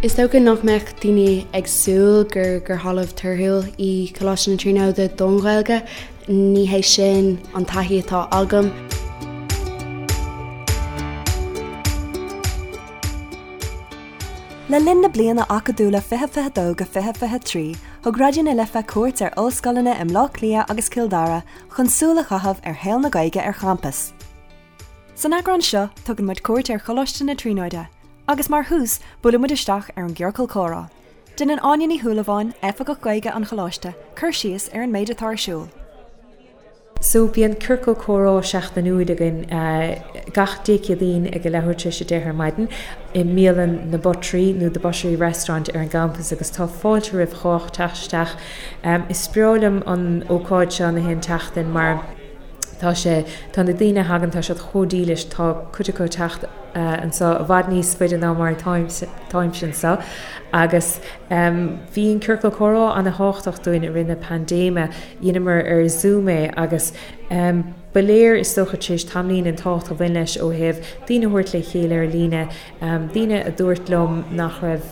Is dócha nach mbeadh daoine ag súil gur gur thalamh torthúil í Coláiste na Tríonóide don Ghaeilge. Ní hé sin an taithí atá agam. Le linn na bliana acadúla 2022-2023, thug Raidió na Life cuairt ar ollscoileanna i mBleá Cliath agus Cill Dara chun súil a chaitheamh ar shaol na Gaeilge ar champas. San eagrán seo, tugann muid cuairt ar Choláiste na Tríonóide, agus mar thús, buaileann muid isteach ar an gCiorcal Comhrá. Déanann Áine Ní Shúilleabháin, Oifigeach Gaeilge an Choláiste, cur síos ar an méid atá ar siúl. So, bíonn Ciorcal Comhrá seachtainiúil againn gach Dé Céadaoin ag a leathuair tar éis a 10 ar maidin i mbialann na Buttery nó The Buttery Restaurant ar an gcampas agus tá fáilte roimh chách teacht isteach. Is breá liom an ócáid seo na haon tseachtain mar Tá sé, tá na daoine a thagann, tá siad chomh dílis, tá cuid acu ag teacht anseo i bhfad níos faide ná mar atáimse anseo agus bhí an ciorcal comhrá ana-thábhachtach dúinn i rith na paindéime, dheineamar ar Zoom é agus ba léir is dócha tar éis tamaillín an tábhacht a bhain leis ó thaobh daoine a thabhairt le chéile ar líne, Daoine a dúirt liom nach raibh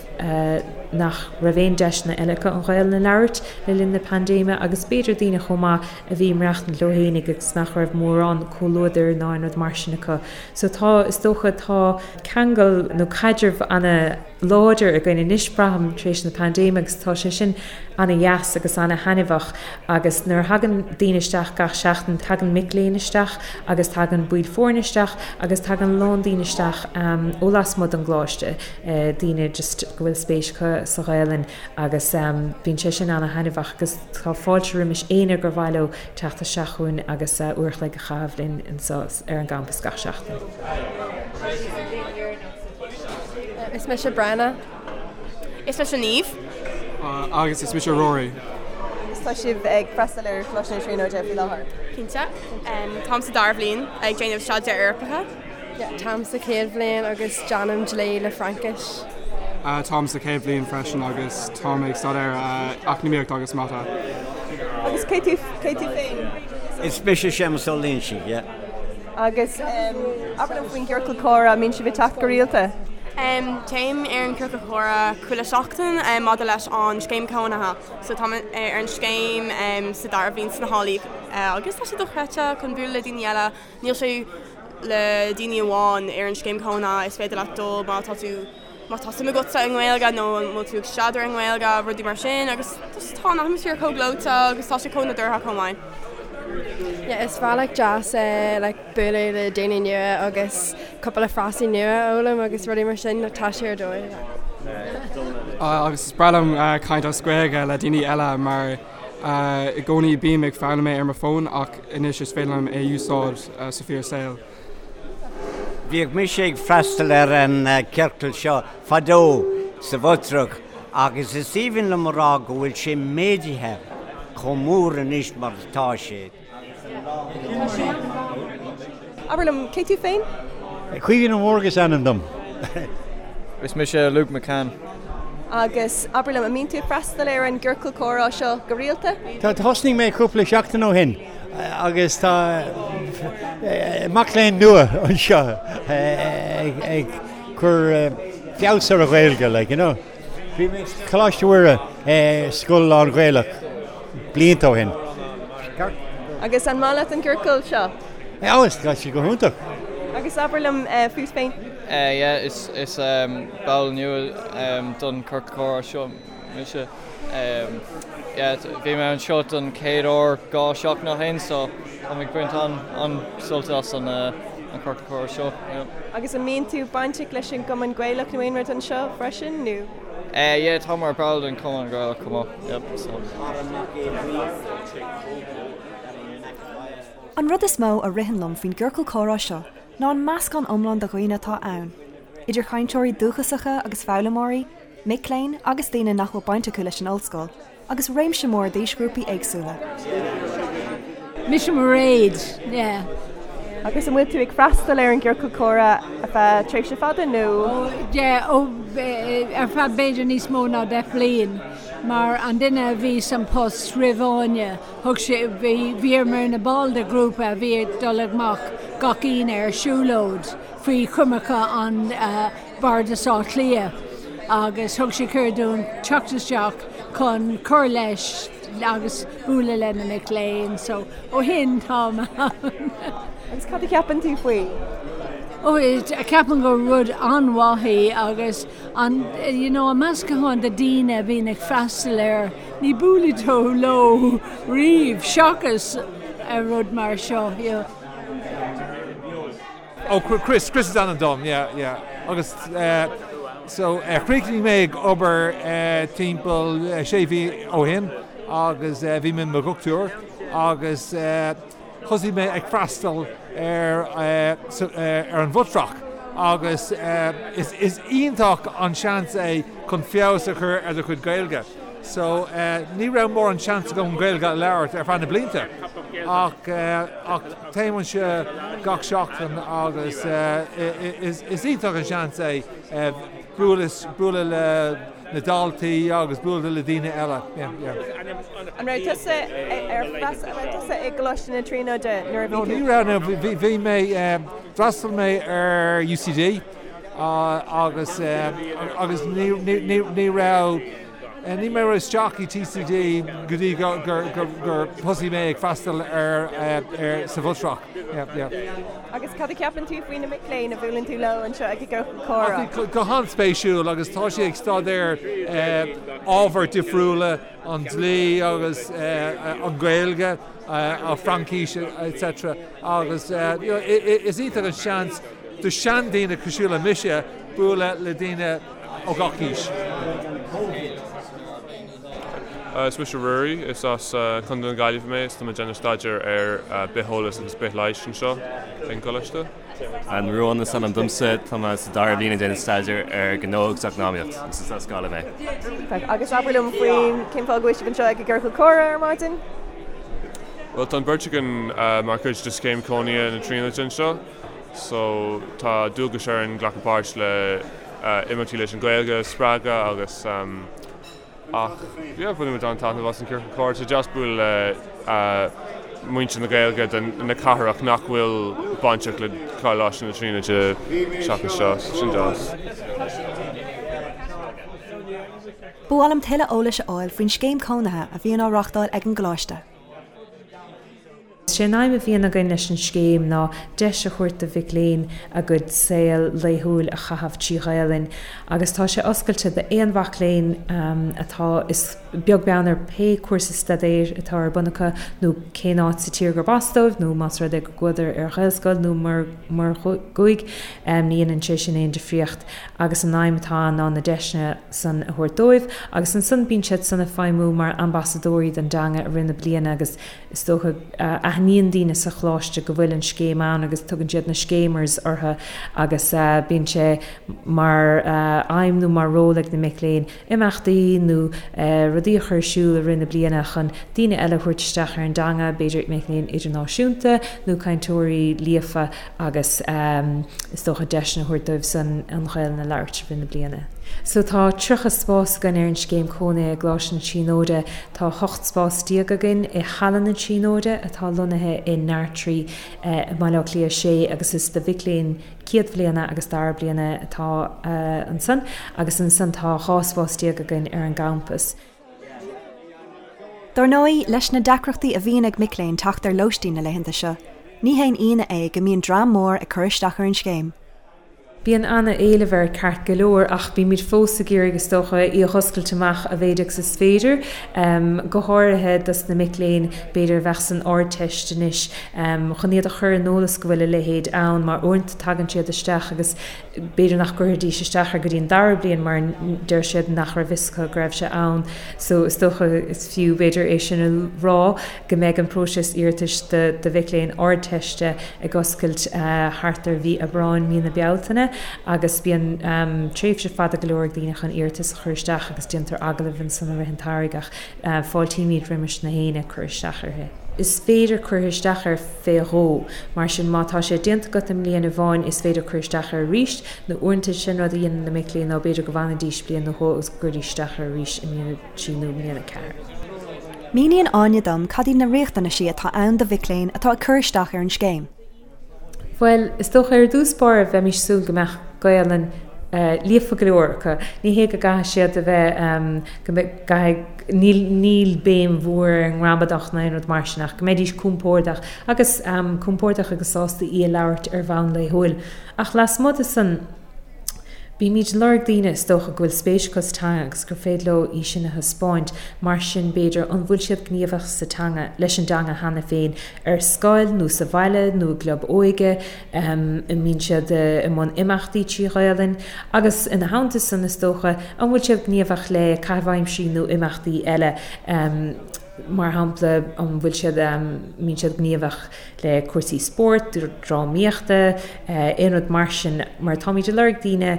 nach raibh aon deiseanna eile acu an Ghaelainn a labhairt le linn na paindéime agus b'fhéidir daoine chomh maith a bhí ag maireachtaint leo fhéinig agus nach raibh mórán comhluadair ná aon rud mar sin acu. So tá, is dócha, tá ceangal nó caidreamh ana láidir againn anois braithim tar éis na paindéime agus tá sé sin ana-dheas agus ana-thaitneamhach agus nuair a thagann daoine isteach gach seachtain, tagann mic léinn isteach agus tagann baill foirne isteach agus tagann a lán daoine isteach ó lasmuigh den gcoláiste, daoine just go bhfuil spéis acu sa Ghaelainn agus bíonn sé sin ana-thaitneamhach agus tá fáilte roimis éinne gur mhaith leo teacht isteach chugainn agus uair a chloig a chaitheamh linn anseo ar an gcampas gach seachtain. Is mise Brenna. Is mise Niamh. Agus is mise Rory. Agus tá sibh ag freastal ar Choláiste na Tríonóide faoi láthair? Cinnte. Táim sa dara bhliain ag déanamh staidéar Eorpacha. Táim sa chéad bhliain agus déanaim dlí le Fraincis. Táim sa chéad bhliain freisin agus táim ag staidéar eacnamaíocht agus mata. Agus cé tú féin? Is mise Séamus Ó Loingsigh, yeah. Agus abair liom faoin gciorcal comhrá, an mbíonn sibh ag teacht go rialta? Téim ar an gciorcal comhrá chuile seachtain maidir leis an scéim cónaithe. So táim ar an scéim sa dara bhliain sna hÁlaí agus tá sé dochreidte chun bualadh le daoine eile. Níl sé le daoine amháin ar an scéim cónaithe, is féidir leat dul má tá tú má tá suim agatsa i nGaeilge nó an bhfuil tú ag staidéar i nGaeilge, rudaí mar sin agus just tá an atmaisféar chomh gleoite agus tá sé chomh nádúrtha chomh maith. Yeah, is bealach deas é like bualadh le daoine nua agus cúpla frásaí nua a fhoghlaim agus rudaí mar sin, tá sé ar dóigh. Agus is breá liom caint as Gaeilge le daoine eile mar i gcónaí bím ag foghlaim é ar mo fón ach anois is féidir liom é a úsáid sa fíor saol. Bhíodh mise ag freastal ar an ciorcal seo fadó sa Bhutrach agus is aoibhinn liom a rá go bhfuil sé méadaithe chomh mór anois mar atá sé. Abair liom, cé tú féin? Caoimhín Ó Mórdha is ainm dom. Is mise Luke McCann. Agus abair liom, an mbíonn tú ag freastal ar an gciorcal comhrá seo go rialta? Tá, thosnaigh mé cúpla seachtain ó shin agus tá mac léinn nua anseo ag cur feabhas ar a Ghaeilge, like, you know. Bhí mé sa Choláiste Mhuire, scoil lán-Ghaelach, blianta ó shin. Agus an maith leat an ciorcal seo? Ó, tá sé go hiontach. Agus abair liom fút féin? Yeah, is is ball nua don ciorcal comhrá seo mise. Yeah, bhí mé anseo don chéad uair 2 seachtain ó shin so táim ag baint an-sult as an ciorcal comhrá seo. Yeah. Agus an mbíonn tú bainteach leis an gCumann Gaelach nó aon rud anseo freisin nó? Yeah, tá mar ball den Chumann Gaelach chomh maith. Yep, so. An rud is mó a ritheann liom faoin gciorcal comhrá seo ná an meascán iomlán de dhaoine atá ann, idir chainteoirí dúchasacha agus foghlaimeoirí, mic léinn agus daoine nach bhfuil baint acu leis an ollscoil, agus réimse mór d'aoisghrúpaí éagsúla. Mise Mairéad, yeah. Agus an bhfuil tú ag freastal ar an gciorcal comhrá ar feadh tréimhse fada nó? Ó, yeah, ó, ar feadh b'fhéidir níos mó ná 10 bliain, mar an duine a bhí san post roimh Áine, Thug sé, bhí, bhíomar ina ball de ghrúpa a bhí ag dul amach gach Aoine ar siúlóid faoi choimirce an Bhardas Átha Cliath. agus thug sé cuireadh dúinn teacht isteach chun cur leis agus bualadh le na mic léinn so ó shin táim ann. Agus cad a cheapann tú faoi? Ó ceapaim gur rud an-mhaith é agus an you know an meascán de daoine a bhíonn ag freastal air ní buailfidh tú leo riamh seachas ar rud mar seo you know. Oh Chris, Chris is ainm dom, yeah, yeah. Agus eh, so eh, chríochnaigh mé ag obair eh, timpeall eh, sé mhí ó shin agus eh, bhí mé i mo dhochtúir agus eh, thosaigh mé ag freastal ar eh, so, eh, ar an Bhutrach agus eh, is, is iontach an seans é chun feabhas a chur ar do chuid Gaeilge. So ní raibh mórán seans agam an Ghaeilge a labhairt ar feadh na blianta ach ach téim anseo gach seachtain agus is iontach an seans é bualadh bualadh le na daltaí agus bualadh le daoine eile. Yeah, yeah. An raibh tusa ar an raibh tusa i gColáiste na Tríonóide nuair a bhí tú? No, ní raibh, no, bhí bhí mé d'fhreastail mé ar UCD agus agus ní ní ní raibh ní mé raibh isteach i TCD go dtí gur gur gur gur thosaigh mé ag freastal ar ar sa Bhutrach. Yeah, yeah. Agus cad a cheapann tú faoi na mic léinn a bhuaileann tú leo anseo ag an gciorcal comhrá? Go han-spéisiúil agus tá siad ag staidéar ábhair difriúla, an dlí agus an Ghaeilge, an Fraincis etc. Agus you know, is iontach an seans do seandaoine cosúil le mise bualadh le daoine ó gach aois. Is mise Ruairí, is as Contae na Gaillimhe mé is tá mé ag déanamh staidéar ar bitheolas agus bithleighis anseo ag an gcoláiste. An Ruán is ainm domsa, tá mé sa dara bliain ag déanamh staidéar ar ghnó agus eacnamaíocht agus is as Gaillimh mé. Agus abair liom faoin cén fáth go bhfuil sibh anseo ag an gciorcal comhrá ar maidin? Bhuel tá an bheirt againn mar chuid de scéim cónaithe na Tríonóide anseo. So tá dualgas orainn glacadh páirt le imeachtaí leis an Ghaeilge a spreagadh agus ach yeah bhain muid an-taitneamh as an ciorcal comhrá. Tá sé deas bualadh le muintir na Gaeilge den na cathrach nach bhfuil bainteach le Coláiste na Tríonóide seachas seo, so sin deas. Ba mhaith liom tuilleadh eolais a fháil faoin scéim cónaithe a bhíonn á reáchtáil ag an gcoláiste. Is é an aidhm a bhíonn againn leis an scéim ná deis a thabhairt do mhic léinn a gcuid saol laethúil a chaitheamh trí Ghaelainn agus tá sé oscailte d'aon mhac léinn atá, is beag beann ar pé cúrsa staidéir atá ar bun acu nó cén áit sa tír gurb as dóibh nó más rud é go gcuadar ar Ghaelscoil nó mura gcuaigh, ní dhéanann sé sin aon difríocht agus an aidhm atá ann ná na deiseanna san a thabhairt dóibh agus ansan bíonn siad san ag feidhmiú mar ambasadóirí don dteanga i rith na bliana agus Is dócha, aithníonn daoine sa choláiste go bhfuil an scéim ann agus tugann siad na scéimers orthu agus bíonn sé mar aidhm nó mar ról ag na mic léinn imeachtaí nó rudaí a chur ar siúl i rith na bliana chun daoine eile a thabhairt isteach ar an dteanga, b'fhéidir mic léinn idirnáisiúnta nó cainteoirí líofa agus is dócha deiseanna a thabhairt dóibh san an Ghaelainn a labhairt i rith na bliana. So tá 30 spás againn ar an scéim cónaithe i gColáiste na Tríonóide. Tá 18 spás againn i Halla na Tríonóide atá lonnaithe i nDartraí i mBaile Átha Cliath 6 agus is do mhic léinn céad bhliana agus dara bliana atá ansan agus ansan tá 12 spás againn ar an gcampas. Dar ndóigh, leis na deacrachtaí a bhíonn ag mic léinn teacht ar lóistín na laethanta seo, ní haon ionadh é go mbíonn dream mór ag cur isteach ar an scéim. Bíonn ana-éileamh air ceart go leor ach bímid fós ag iarraidh is dócha í a dh'oscailt amach a mhéid agus is féidir, go háirithe dos na mic léinn b'fhéidir a bheadh san Ardteist anois, chun iad a chur in eolas go bhfuil a leithéid ann mar uaireanta tagann siad isteach agus b'fhéidir nach gcuirfidís isteach air go dtí an dara bliain mar deir siad nach raibh fhios acu go raibh sé ann. So is dócha is fiú b'fhéidir é sin a rá. go mbeidh an próiseas iarratais do mhic léinn Ardteiste ag oscailt thart ar mhí Aibreáin, mí na Bealtaine agus bíonn tréimhse fada go leor ag daoine chun iarratas a chur isteach agus déantar agallaimh ansan i rith an tsamhraidh ach fáiltímid roimis na héinne ag cur isteach uirthi. Is féidir cur isteach air fé dhó, mar sin má tá sé déanta agat i mbliain amháin is féidir cur isteach air arís nó uaireanta sin rud a dhéanann na mic léinn ná b'fhéidir go bhfanfaidís bliain nó dhó agus go gcuiridís isteach air arís i mbliain a 3 nó mbliain 4. Míníonn Áine dom cad iad na riachtanaisí atá ann do mhic léinn atá ag cur isteach ar an scéim. Bhuel, is dócha ar dtús báire bheimis ag súil go mbeadh Gaelainn Líofa go leor acu. Ní hé go gcaithfidh siad a bheith, go gcaithfidh, níl, níl béim mhór ar an ngramadach ná aon rud mar sin ach go mbeidís compordach agus compordach agus sásta í a labhairt ar bhonn laethúil. Ach lasmuigh de san, bímid ag lorg daoine is dócha go bhfuil spéis acu sa teanga agus gur féidir leo í sin a thaispeáint. Mar sin, b'fhéidir, an bhfuil siad gníomhach sa teanga, leis an dteanga cheana féin, ar scoil nó sa bhaile nó i gclub óige, an mbíonn siad i mbun imeachtaí trí Ghaelainn? Agus ina theannta san, is dócha, an bhfuil siad gníomhach le caitheamh aimsire nó imeachtaí eile, mar shampla, an bhfuil siad, mbíonn siad gníomhach le cúrsaí spóirt, drámaíochta, aon rud mar sin, mar táimid ag lorg daoine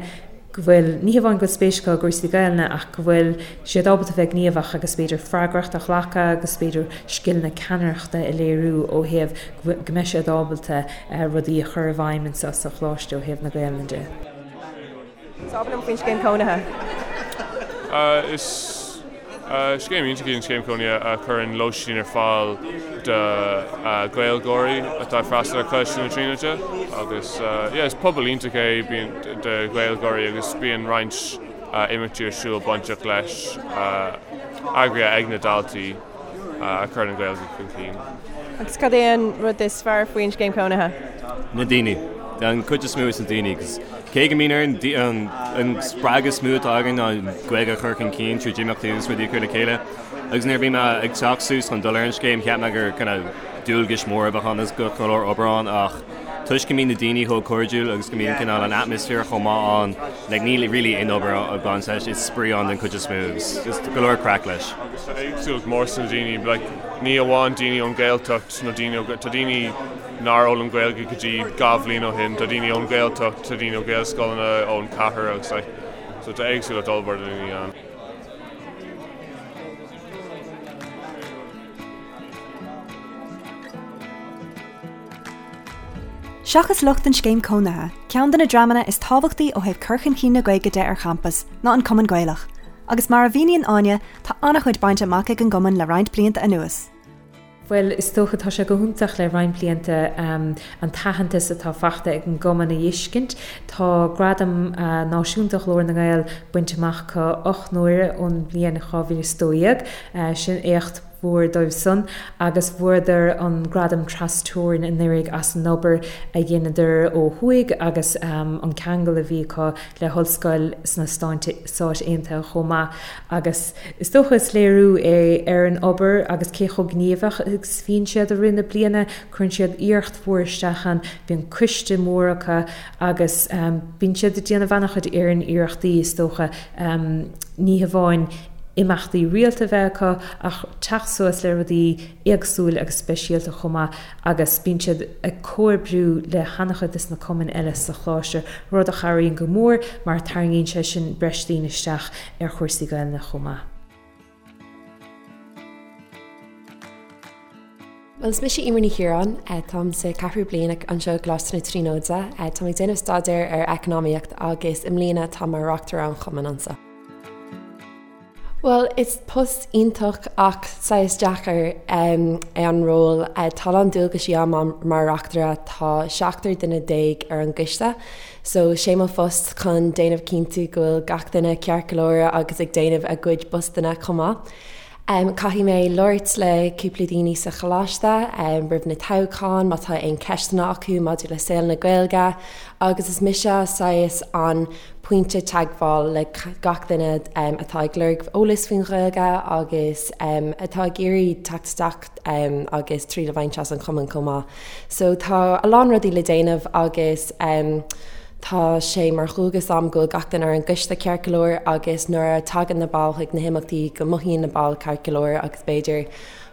go bhfuil, ní hamháin go bhfuil spéis acu i gcúrsaí Gaelainne ach go bhfuil siad ábalta bheith gníomhach agus b'fhéidir freagracht a ghlacadh agus b'fhéidir scileanna ceannaireachta a léiriú ó thaobh go mbeidh siad ábalta rudaí a chur i bhfeidhm anseo sa choláiste ó thaobh na Gaelainne de. So abair liom faoin scéim cónaithe. Is scéim iontach í an scéim cónaithe a chuireann lóistín ar fáil do Ghaeilgeoirí atá ag freastal ar Choláiste na Tríonóide agus yeah is pobal iontach é bíonn do Ghaeilgeoirí agus bíonn roinnt imeachtaí ar siúl bainteach leis eagraithe ag na daltaí. a chuireann an Ghaeilge chun cinn. Agus cad é an rud is fearr faoin scéim cónaithe? Na daoine. An chuid is mó is na daoine. Cos cé go mbíonn orainn an spreagadh is mó atá againn ná an Ghaeilge a chur chun cinn tríd imeachtaí agus rudaí a chur le chéile. Agus nuair a bhí mé ag teacht suas chun dul ar an scéim cheap mé gur kind of dualgais mór a bheadh ann agus go leor obair ann ach toisc go mbíonn na daoine chomh cairdiúil agus go mbíonn cineál an atmaisféar chomh maith ann, like níl really aon obair ag baint leis, is spraoi ann den chuid is mó agus just go leor craic leis. Agus tá éagsúlacht mór sna daoine, like ní amháin daoine ón Ghaeltacht nó daoine ó, tá daoine nár fhoghlaim Gaeilge go dtí 2 bhliain ó shin, tá daoine ón Ghaeltacht, tá daoine ó Ghaelscoileanna, ón chathair agus like, so tá éagsúlacht ollmhór de dhaoine ann. Seachas lucht an scéim cónaithe, ceann de na dreamanna is tábhachtaí ó thaobh cur chun cinn na Gaeilge de ar champas ná an Cumann Gaelach, agus mar a mhíníonn Áine, tá an-chuid bainte amach ag an gcumann le roinnt blianta anuas. Bhuel, is dócha, tá sé go hiontach le roinnt blianta an t-aitheantas atá faighte ag an gcumann a fheiscint. Tá Gradam Náisiúnta Ghlór na nGael bainte amach acu 8 n-uaire ón mbliain 2012. Sin éacht mhór dóibh san agus bhuadar an gradam tras-teorann anuraidh as an obair a dheineadar ó thuaidh agus an ceangal a bhí acu le hollscoil sna Stáit Aontaithe chomh maith agus is dócha is léiriú é ar an obair agus cé chomh gníomhach agus a bhíonn siad i rith na bliana, cuireann siad iarracht mhór isteach ann, bíonn coiste mór acu agus bíonn siad ag déanamh an-chuid iarrachtaí is dócha ní hamháin imeachtaí rialta a bheith acu ach teacht suas le rudaí éagsúil agus speisialta chomh maith agus bíonn siad ag comhoibriú le han-chuid des na cumainn eile sa choláiste, rud a chabhraíonn go mór mar tarraingíonn sé sin breis daoine isteach ar chúrsaí Gaelainne chomh maith. Bhuel, is mise Eimear Ní Chiaráin. Táim sa ceathrú bliain anseo i gColáiste na Tríonóide. Táim ag déanamh staidéir ar Eacnamaíocht agus i mbliana táim mar Reachtaire an Chumainn anseo. Bhuel, is post iontach ach saghas deacair é an ról. Tá a lán dualgaisí agam mar reachtaire, tá seachtar duine déag ar an gcoiste, so sé mo phost chun déanamh cinntiú go bhfuil gach duine ceart go leor agus ag déanamh a gcuid postanna chomh maith. Caithfidh mé labhairt le cúpla daoine sa choláiste roimh na toghcháin má tá aon ceisteanna acu maidir le saol na Gaeilge agus is mise saghas an pointe teagmháil le gach duine atá ag lorg eolas faoin Ghaeilge agus atá ag iarraidh teacht isteach agus triail a bhaint as an chumann chomh maith. So tá a lán rudaí le déanamh agus tá sé mar dhualgas a'm go bhfuil gach duine ar an gcoiste ceart go leor agus nuair a tagann na baill chuig na himeachtaí go mothaíonn na baill ceart go leor agus b'fhéidir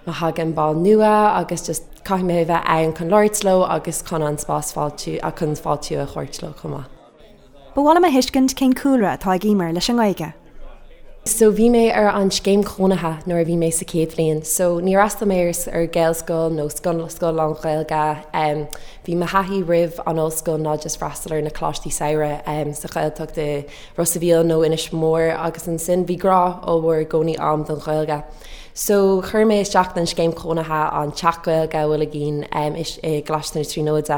má thagann ball nua agus just caithfidh mé a bheith ann chun labhairt leo agus chun an spás fáiltiú chun fáiltiú a thabhairt leo chomh maith. Ba mhaith liom a thuiscint cén cúlra atá ag Eimear leis an nGaeilge. So bhí mé ar an scéim chónaithe nuair a bhí mé sa chéad bhliain. So níor fhreastail mé ar Ghaelscoil nó scoil scoil lán-Ghaeilge. Bhí mo thaithí roimh an ollscoil ná just freastal ar na coláistí samhraidh sa Ghaeltacht i Ros a' Mhíl nó Inis Mór agus ansin bhí grá ollmhór i gcónaí a'm don Ghaeilge. So chuir mé isteach don scéim chónaithe an Teach Gaeilge a bhfuil againn i gColáiste na Tríonóide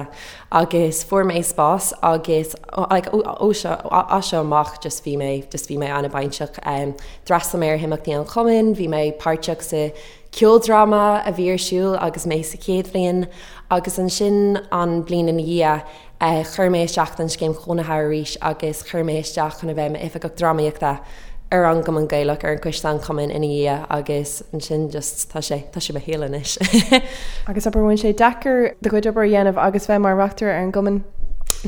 agus fuair mé spás agus like ó seo as seo amach just bhí mé just bhí mé an-bainteach. D'fhreastail mé ar himeachtaí an chumainn, bhí mé páirteach sa ceoldráma a bhí ar siúl agus mé sa chéad bhliain agus ansin an bliain ina dhiaidh chuir mé isteach don scéim chónaithe arís agus chuir mé isteach chun a bheith i m'oifigeach drámaíochta ar an gCumann Gaelach, ar an gcoiste an chumainn ina dhiaidh agus ansin just tá sé, tá sé mo shaol anois. Agus abair, bhfuil sé deacair do chuid obair a dhéanamh agus bheith mar reachtaire ar an gcumann?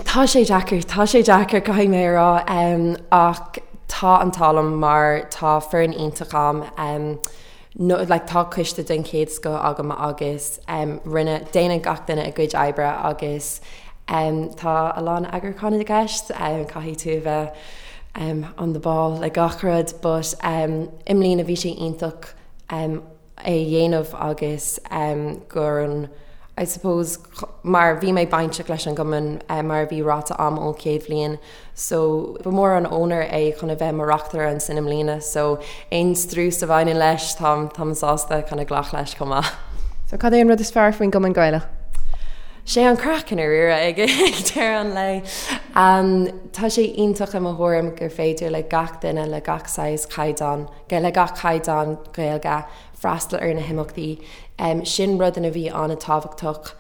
Tá sé deacair, tá sé deacair caithfidh mé a rá ach tá an t-ádh liom mar tá foireann iontach a'm. No, like tá coiste den chéad scoth agam agus em rinne, déanann gach duine a gcuid oibre agus em tá a lán eagrúcháin i gceist, em caithfidh tú a bheith em on the ball le gach rud but em i mbliana bhí sé iontach em é a dhéanamh agus em gur an I suppose mar bhí mé bainteach leis an gcumann mar a bhí ráite a'm ón chéad bhliain so ba mhór an onóir é chun a bheith mo reachtaire ansin i mbliana so aon strus a bhaineann leis táim táim sásta chun a ghlacadh leis chomh maith. So cad é an rud is fearr faoin gCumann Gaelach? Sé an craic i ndáiríre ag deireadh an lae. Tá sé iontach i mo thuairim gur féidir le gach duine le gach saghas caighdeán, le gach caighdeán Gaeilge freastal ar na himeachtaí. Sin rud a bhí an-tábhachtach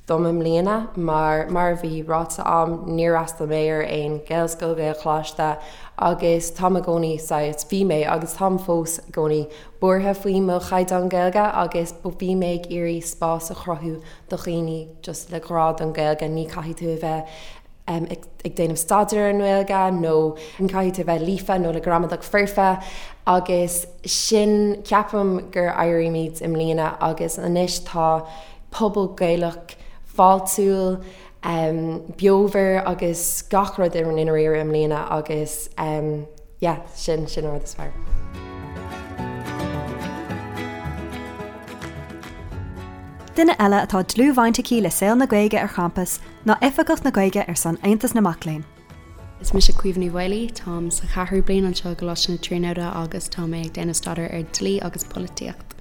dom i mbliana mar, mar a bhí ráite a'm, níor fhreastail mé ar aon Ghaelscoil, Gaelcholáiste agus táim i gcónaí saghas, bhí mé agus táim fós i gcónaí buartha faoi mo chaighdeán Gaeilge agus bhí mé ag iarraidh spás a chruthú do dhaoine just le grá don Ghaeilge, ní caithfidh tú a bheith ag déanamh staidéar ar an nGaeilge nó ní caithfidh tú a bheith líofa nó le gramadach foirfe agus sin, ceapaim gur éirímid i mbliana agus anois tá pobal Gaelach fáiltiúil, beomhar agus gach rud i ndáiríre i mbliana agus yeah, sin, sin an rud is fearr. Duine eile atá dlúthbhaint aici le saol na Gaeilge ar champas ná Oifigeach na Gaeilge ar son Aontas na Mac Léinn. Is mise Caoimhe Ní Mhaolaí, táim sa cheathrú bliain anseo i gColáiste na Tríonóide agus tá mé ag déanamh staidéir ar Dlí agus Polaitíocht.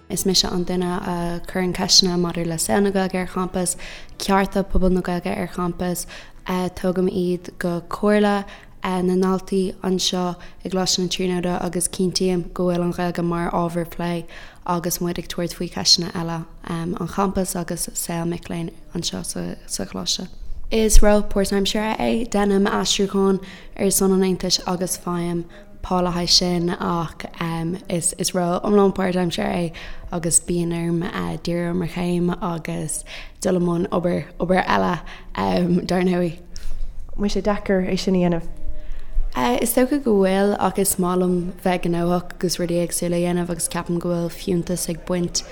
Is mise an duine a chuireann ceisteanna maidir le saol na Gaeilge ar champas, cearta pobal na Gaeilge ar champas, tógaim iad go Comhairle na ndaltaí anseo i gColáiste na Tríonóide agus cinntím go bhfuil an Ghaeilge mar ábhar plé agus muid ag tabhairt faoi cheisteanna eile an champais agus saol mic léinn anseo sa Choláiste. Is ról páirtaimseartha é, déanaim aistriúchán ar son an Aontais agus faighim pá le haghaidh sin ach is ról iomlán páirtaimseartha é agus bíonn orm díriú ar mo chéim agus dul i mbun obair, obair eile dar ndóigh. An bhfuil sé deacair é sin a dhéanamh? Is dócha go bhfuil ach is maith liom bheith gnóthach agus rudaí éagsúla a dhéanamh agus ceapaim go bhfuil fiúntas ag baint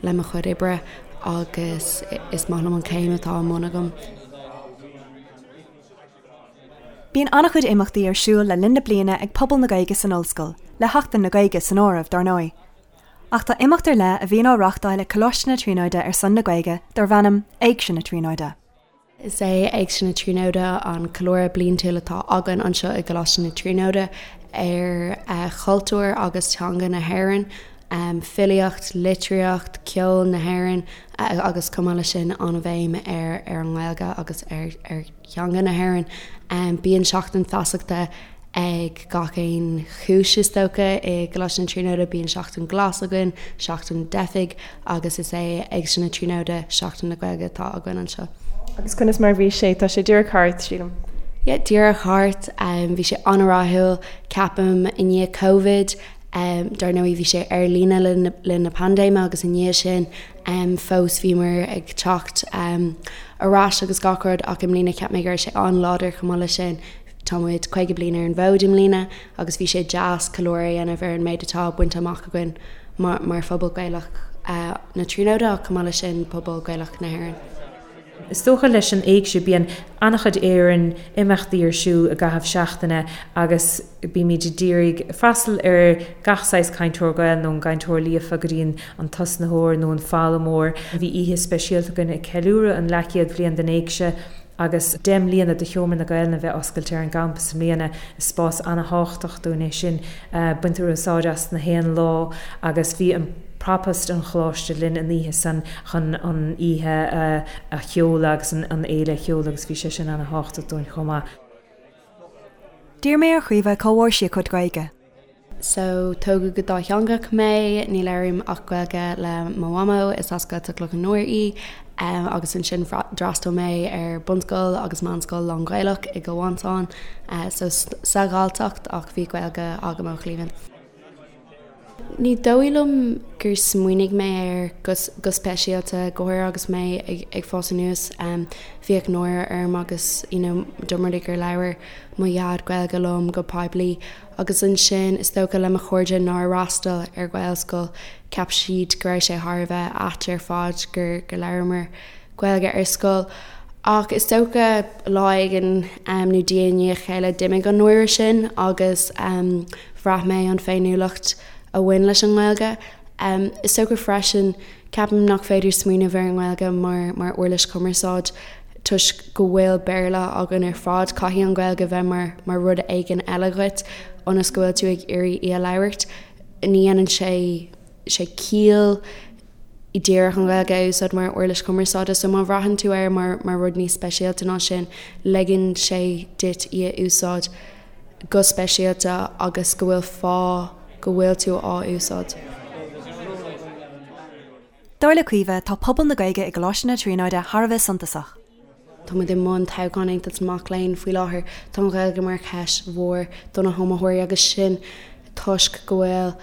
le mo chuid oibre agus is maith liom an chéim atá i mbun agam. Bíonn an-chuid imeachtaí ar siúl le linn na bliana ag pobal na Gaeilge san ollscoil, le Seachtain na Gaeilge san áireamh, dar ndóigh. Ach tá imeacht ar leith a bhíonn á reáchtáil ag Coláiste na Tríonóide ar son na Gaeilge darb ainm Éigse na Tríonóide. Is é Éigse na Tríonóide an ceiliúradh bliantúil atá againn anseo i gColáiste na Tríonóide ar chultúr agus teanga na hÉireann, filíocht, litríocht, ceol na hÉireann agus chomh maith leis sin an-bhéim ar ar an nGaeilge agus ar ar theanga na hÉireann. Bíonn seachtain feasachta ag gach aon chúis is dócha i gColáiste na Tríonóide, bíonn seachtain glas againn, seachtain teifigh agus is é Éigse na Tríonóide Seachtain na Gaeilge atá againn anseo. Agus conas mar a bhí sé? Tá sé díreach thart, sílim. Yeah, díreach thart. Bhí sé an-rathúil, ceapaim, i ndiaidh Covid. Dar ndóigh bhí sé ar líne le linn na paindéime agus i ndiaidh sin fós bhíomar ag teacht ar ais agus gach rud ach i mbliana cheap mé go raibh sé an-láidir chomh maith leis sin. Tá muid 50 bliain ar an bhfód i mbliana agus bhí sé deas ceiliúradh a dhéanamh ar an méid atá bainte amach againn mar phobal Gaelach na Tríonóide ach chomh maith leis sin pobal Gaelach na hÉireann. Is dócha leis an Éigse bíonn an-chuid Éireann imeachtaí ar siúl i gcaitheamh seachtaine agus bímid ag iarraidh freastal ar gach saghas cainteoir Gael nó an gcainteoir líofa go dtí an tosnaitheoir nó an foghlaimeoir. Bhí oíche speisialta againn ag ceiliúradh an leathchéad bhliain den Éigse. Agus 10 mbliana de Sheomra na Gaelainne a bheith oscailte ar an gcampas i mbliana, is spás ana-thábhachtach dúinn é sin. Baintear úsáid as na haon lá agus bhí an Propast an Choláiste linn an oíche san chun an oíche a sheoladh agus an fhéile a sheoladh agus bhí sé sin ana-thábhachtach dúinn chomh maith. D'iarr mé ar Chaoimhe cá bhfuair sí a cuid Gaeilge. So, tógadh go dátheangach mé, ní labhraím ach Gaeilge le mo mhamó, is as Gaeltacht Loch an Iúir í, agus ansin d'fhreastail mé ar bunscoil agus meánscoil lán-Ghaelach i gCill Mhantáin, so sa Ghalltacht ach bhí Gaeilge agam ó chliamhain. Ní dóigh liom gur smaoinigh mé air go speisialta, go háirithe agus mé ag fás anuas. Bhíodh náire orm agus you know dá mba rud é gur labhair mo dhaid Gaeilge liom go poiblí agus ansin is dócha le mo chairde nár fhreastail ar Ghaelscoil, cheap siad go raibh sé thar a bheith ait ar fad gur labhramar Gaeilge ar scoil. Ach is dócha lá éigin nó diaidh i ndiaidh a chéile d'imigh an náire sin agus bhraith mé an féiniúlacht a bhain leis an nGaeilge. Is dócha freisin, ceapaim nach féidir smaoineamh ar an nGaeilge mar mar uirlis chumarsáid toisc go bhfuil Béarla againn ar fad, caithfidh an Ghaeilge bheith mar mar rud éigin eile dhuit ionas go bhfuil tú ag iarraidh í a labhairt. Ní dhéanann sé sé ciall díreach an Ghaeilge a úsáid mar uirlis chumarsáide so má bhraitheann tú air mar mar rud níos speisialta ná sin, ligeann sé duit í a úsáid go speisialta agus go bhfuil fáth go bhfuil tú á úsáid. Dar le Caoimhe, tá pobal na Gaeilge i gColáiste na Tríonóide thar a bheith suntasach. Tá muid i mbun toghchán Aontas na Mac Léinn faoi láthair. Tá an Ghaeilge mar cheist mhór do na hiomaitheoirí agus sin toisc go bhfuil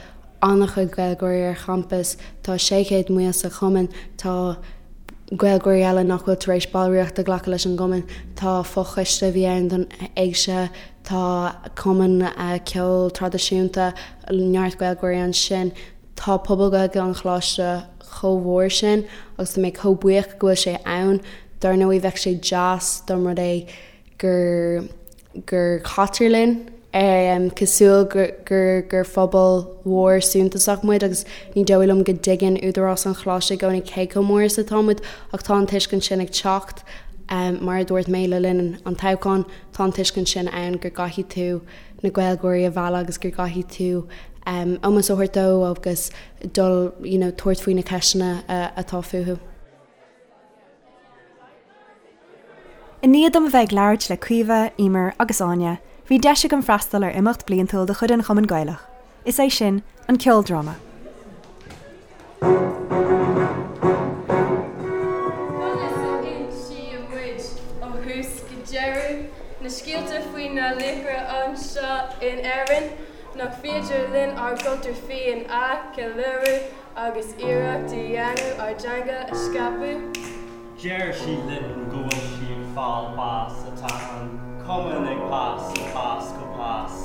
an-chuid Gaeilgeoirí ar champas. Tá 600,000 sa chumann. Tá Gaeilgeoirí eile nach bhfuil tar éis ballraíocht a ghlacadh leis an gcumann. Tá fochoiste a bhí ann don Éigse. Tá cumann ceoil traidisiúnta, neart Gaeilgeoirí ansin. Tá pobal Gaeilge an Choláiste chomh mhór sin agus tá mé chomh buíoch go bhfuil sé ann. Dar ndóigh bheadh sé deas dá mba rud é gur gur caitear linn cosúil gur gur phobal mhór suntasach muid agus ní dóigh liom go dtuigeann údarás an Choláiste i gcónaí cé chomh mór is atá muid ach tá an tuiscint sin ag teacht. Mar a dúirt mé le linn an toghcháin, tá an tuiscint sin ann go gcaithfidh tú na Gaeilgeoirí a mhealladh agus go gcaithfidh tú ómós a thabhairt dó agus dul you know tabhairt faoi na ceisteanna atá fúthu. I ndiaidh dom a bheith ag labhairt le Caoimhe, Emer agus Áine, bhí deis agam freastal ar imeacht bliantúil de chuid an Chumainn Gaelach, is é sin, an ceoldráma. Conas a insíonn muid ó thús go deireadh na scéalta faoi na laochra anseo in Éirinn? Nach féidir linn ár gcultúr féin a cheiliúradh agus iarracht a dhéanamh ár dteanga a scaipeadh? Deir sí linn go bhfuil sí ag fáil bás Tá an cumann ag fás ag fás go pás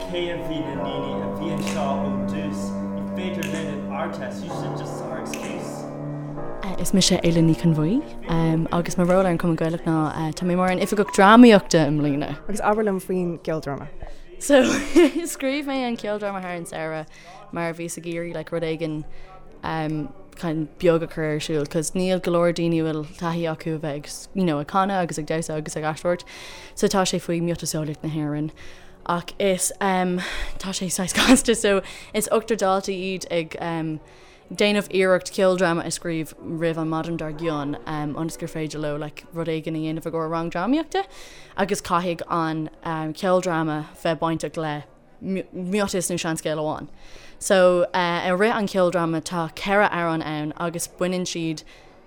Cé a bhí na ndaoine a bhí anseo ó dtús Ní féidir linn an Ardteist use it just our excuse. Is mise Aoileann Ní Chonbhuí agus mo ról ar an Chumann Gaelach ná tá mé mar an Oifigeach Drámaíochta i mbliana. Agus abair liom faoin gceoldráma. So scríobh mé an ceoldráma thar an samhradh mar bhíos ag iarraidh like rud éigin um, kind of beag a chur ar siúl cos níl go leor daoine a bhfuil taithí acu a bheith ag you know, ag canadh agus ag damhsa agus ag aisteoireacht so tá sé faoi miotaseolaíocht na hÉireann ach is um, tá sé saghas casta so is ochtar daltaí iad ag um, déanamh iarracht ceoldráma a scríobh roimh an maidin dár gcionn um, ionas gur féidir leo like, rud éigin a dhéanamh i gcomhair rang drámaíochta agus caithfidh an um, ceoldráma bheith bainteach le miotas nó seanscéal amháin. So i rith an cheoldráma tá 4 amhrán ann agus baineann siad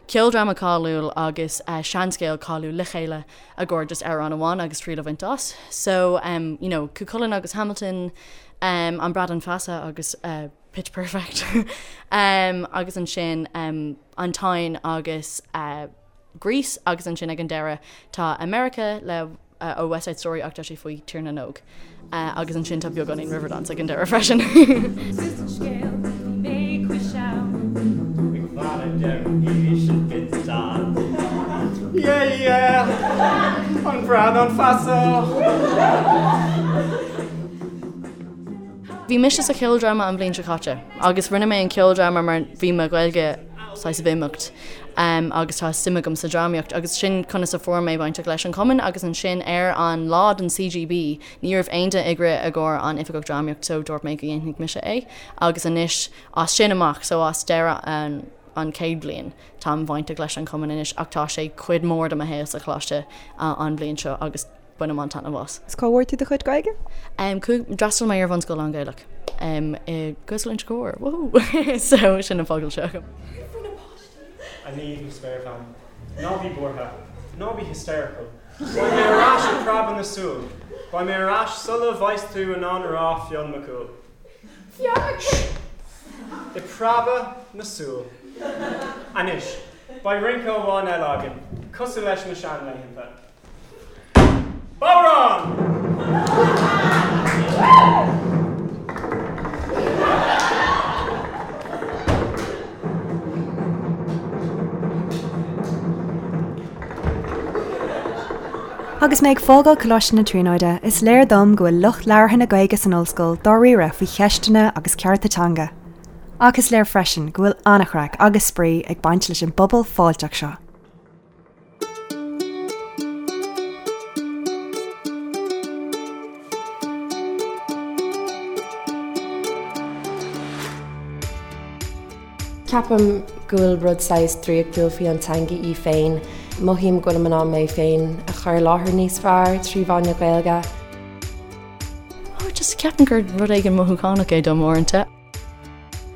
ceoldráma cáiliúil agus seanscéal cáiliúil le chéile i gcomhair just amhrán amháin agus triail a bhaint as. So um, you know, Cú Chulainn agus Hamilton, um, An Bradán Feasa agus uh, Pitch Perfect um, agus ansin um, An Táin agus uh, Grease agus ansin ag an deireadh tá America le ó West Side Story ach tá sé faoi Tír na nÓg. Agus ansin tá beagáinín Riverdance ag an deireadh freisin. Tús an scéil, bhí mé cois abhann. Ag faire deireadh sin fiteán. Yeah yeah, an Bradán Feasa. Bhí mise sa cheoldráma an bhliain seo caite agus rinne mé an ceoldráma mar bhí mo Ghaeilge. saghas of imeacht agus tá suim agam sa drámaíocht agus sin conas a fuair mé bainteach leis an chumann agus ansin ar an lá den CGB ní raibh aon duine ag rith i gcomhair an oifigeach drámaíocht so dúirt mé go dhéanfaidh mise é agus anois as sin amach so as deireadh an an chéad bhliain táim bainteach leis an chumann anois ach tá sé cuid mór de mo shaol sa choláiste an bhliain seo agus bainim an-taitneamh as. Is cá bhfuair tú do chuid Gaeilge? D'fhreastail mé ar bhunscoil lán-Ghaelach i Gaelscoil Inse Chór, woohoo! So sin an focal seo agam. A Niamh, mo spéirbhean, ná bí buartha, ná bí hysterical. Beidh mé ar ais i bpreabadh na súl. Beidh mé ar ais sula bheas tú in ann a rá Fionn Mac Cumhaill. Fionn Mac Cumhaill! I bpreabadh na súl. Anois, beidh rince amháin eile againn, cosúil leis na seanlaethanta. Bodhrán! Agus mé ag fágáil Coláiste na Tríonóide, is léir dom go bhfuil lucht labhartha na Gaeilge san ollscoil dáiríre faoi cheisteanna agus cearta teanga. Ach is léir freisin go bhfuil an-chraic agus spraoi ag baint leis an bpobal fáilteach seo. Ceapaim go bhfuil rud saghas draíochtúil faoi an teanga í féin. Mothaím go bhfuilim in ann mé féin a chur i láthair níos fearr trí mheán na Gaeilge. Oh, just ceapaim gur rud éigin mothúchánach é dom uaireanta.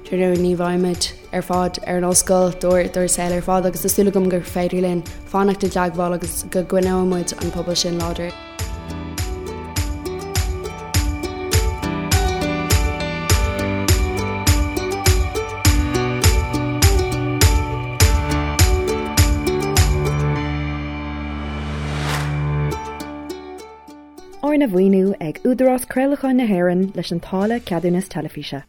Dar ndóigh ní bheimid ar fad ar an ollscoil dár saol ar fad agus tá súil agam gur féidir linn fanacht i dteagmháil agus go gcoinneoidh muid an pobal sin láidir. Arna mhaoiniú ag Údarás Craolacháin na hÉireann leis an táille Ceadúnas Teilifíse.